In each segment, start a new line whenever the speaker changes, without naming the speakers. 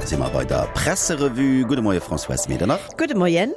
si mer bei der Presserevue. Gudde Moie Françoise Medernach.
Gudde Moien.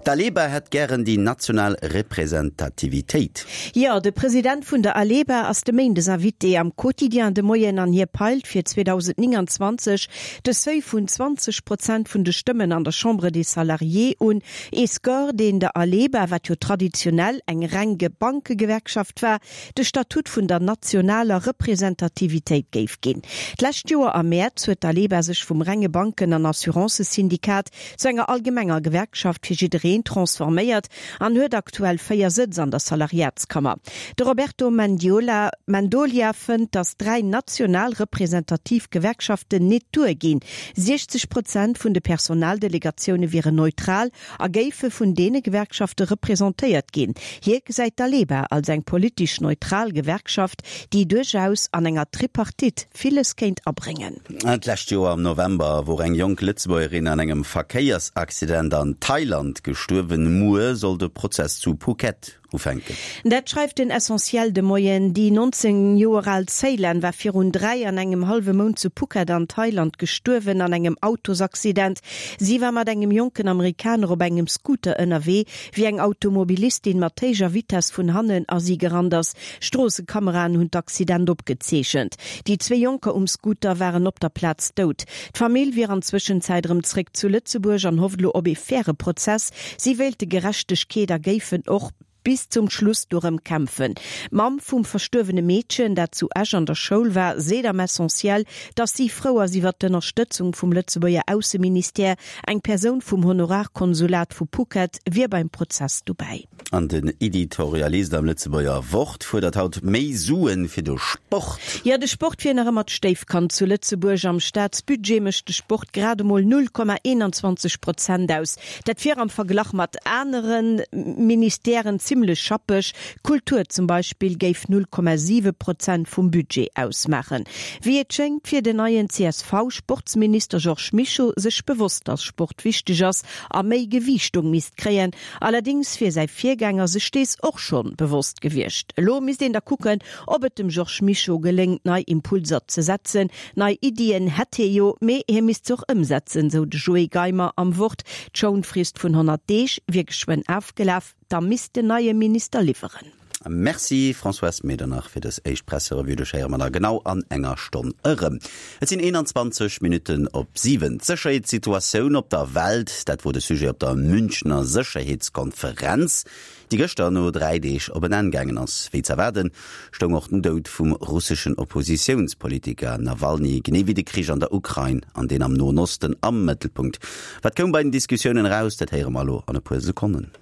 D'Aleba hätt gären déi national Representativitéit.
Jo, de President vun der Aleba ass de Méindes Invité am Quotidien de Moien an hie peilt fir 2029 de Seuil vun 20 Prozent vun de Stëmmen an der Chambre des Salariés un. Ee Score, deen der Aleba, wat jo traditionell eng reng Bankegewerkschaft war, de Statut vun der nationaler Representativitéit géif ginn. D'lescht Joer am Mäerz huet d'Aleba sech vum renge Banken an Assurancësyndikat zu enger allgemenger Gewerkschaft fir jiddereen transforméiert an huet aktuell 4 Sëtz an der Salariatskammer. De Roberto Mendiola Mendolia fënnt, datt 3 national representativ Gewerkschaften nit duerginn. 60 Prozent vun de Personaldelegatioune wieren neutral a géife vun deene Gewerkschafte representéiert ginn. Hie gesäit d'Aleba als eng politesch neutral Gewerkschaft, déi duerchaus an enger Tripartite villes kéint abréngen.
D'lescht Joer am November wor eng jonk Lëtzebuergerin an engem Verkéiersaccident an Thailand gestuerwen. Muer soll de Prozess zu Phuket ufänken.
Dat schreift den Essentiel de Moien. Déi 19 Joer al Ceylan war virun 3 an engem hallwe Mount zu Phuket an Thailand gestuerwen an engem Autosaccident. Si war mat engem jonken Amerikaner op engem Scooter ënnerwee, wéi eng Automobilistin mat héijer Vitess vun hannen a si gerannt ass. Stroossekameraen hunn d'Accident opgezeechent. Déi zwee Jonker um Scooter waren op der Plaz dout. D'Famill wier an Zwëschenzäit erëm zréck zu Lëtzebuerg an hofft elo op ee faire Prozess. Si wéilte Gerechtegkeet a géifen och bis zum Schluss dorëm kämpfen. D'Mamm vum verstuerwene Meedchen, dat zu Esch an der Schoul war, seet am Essentiel, datt si frou ass iwwer d'Ënnerstëtzung vum Lëtzebuerger Ausseministère. Eng Persoun vum Honorarkonsulat vu Phuket wier beim Prozess dobäi.
An den Editorialist am Lëtzebuerger Wort fuerdert haut méi Suen fir de Sport.
Jo, de Sport wier nach ëmmer d'Stéifkand zu Lëtzebuerg. Am Staatsbudget mécht de Sport grad emol 0,21 Prozent aus. Dat wier am Verglach mat anere Ministèren zimmlech schappeg. D'Kultur zum Beispill géif 0,7 Prozent vum Budget ausmaachen. Wéi et schéngt, wier den neien CSV-Sportsminister Georges Mischo sech bewosst, datt Sport wichteg ass a méi Gewiichtung misst kréien. Allerdings wier säi Virgänger sech dees och schonn bewosst gewiescht. Elo misst een da kucken, ob et dem Georges Mischo geléngt, nei Impulser ze setzen. Nei Iddien hätt hie jo, mee hie misst se och ëmsetzen, sou de Joé Geimer am Wort. D'Schounfrist vun 100 Deeg wier geschwënn afgelaf, da misst den neie Minister liwweren.
Merci Françoise Medernach fir dës éischt Presserevue. Dech héiere mer da genau an enger Stonn erëm. Et sinn 21 Minutten op 7. D'Sécherheetssituatioun op der Welt, dat wor de Sujet op der Münchner Sécherheetskonferenz, déi gëschter no 3 Deeg op en Enn gaangen ass. Wéi z'erwaarden, stoung och den Doud vum russeschen Oppositiounspolitiker Nawalny, genee wéi de Krich an der Ukrain an deen am Noen Osten am Mëttelpunkt. Wat koum bei den Diskussiounen eraus, dat héiere mer elo an e puer Sekonnen.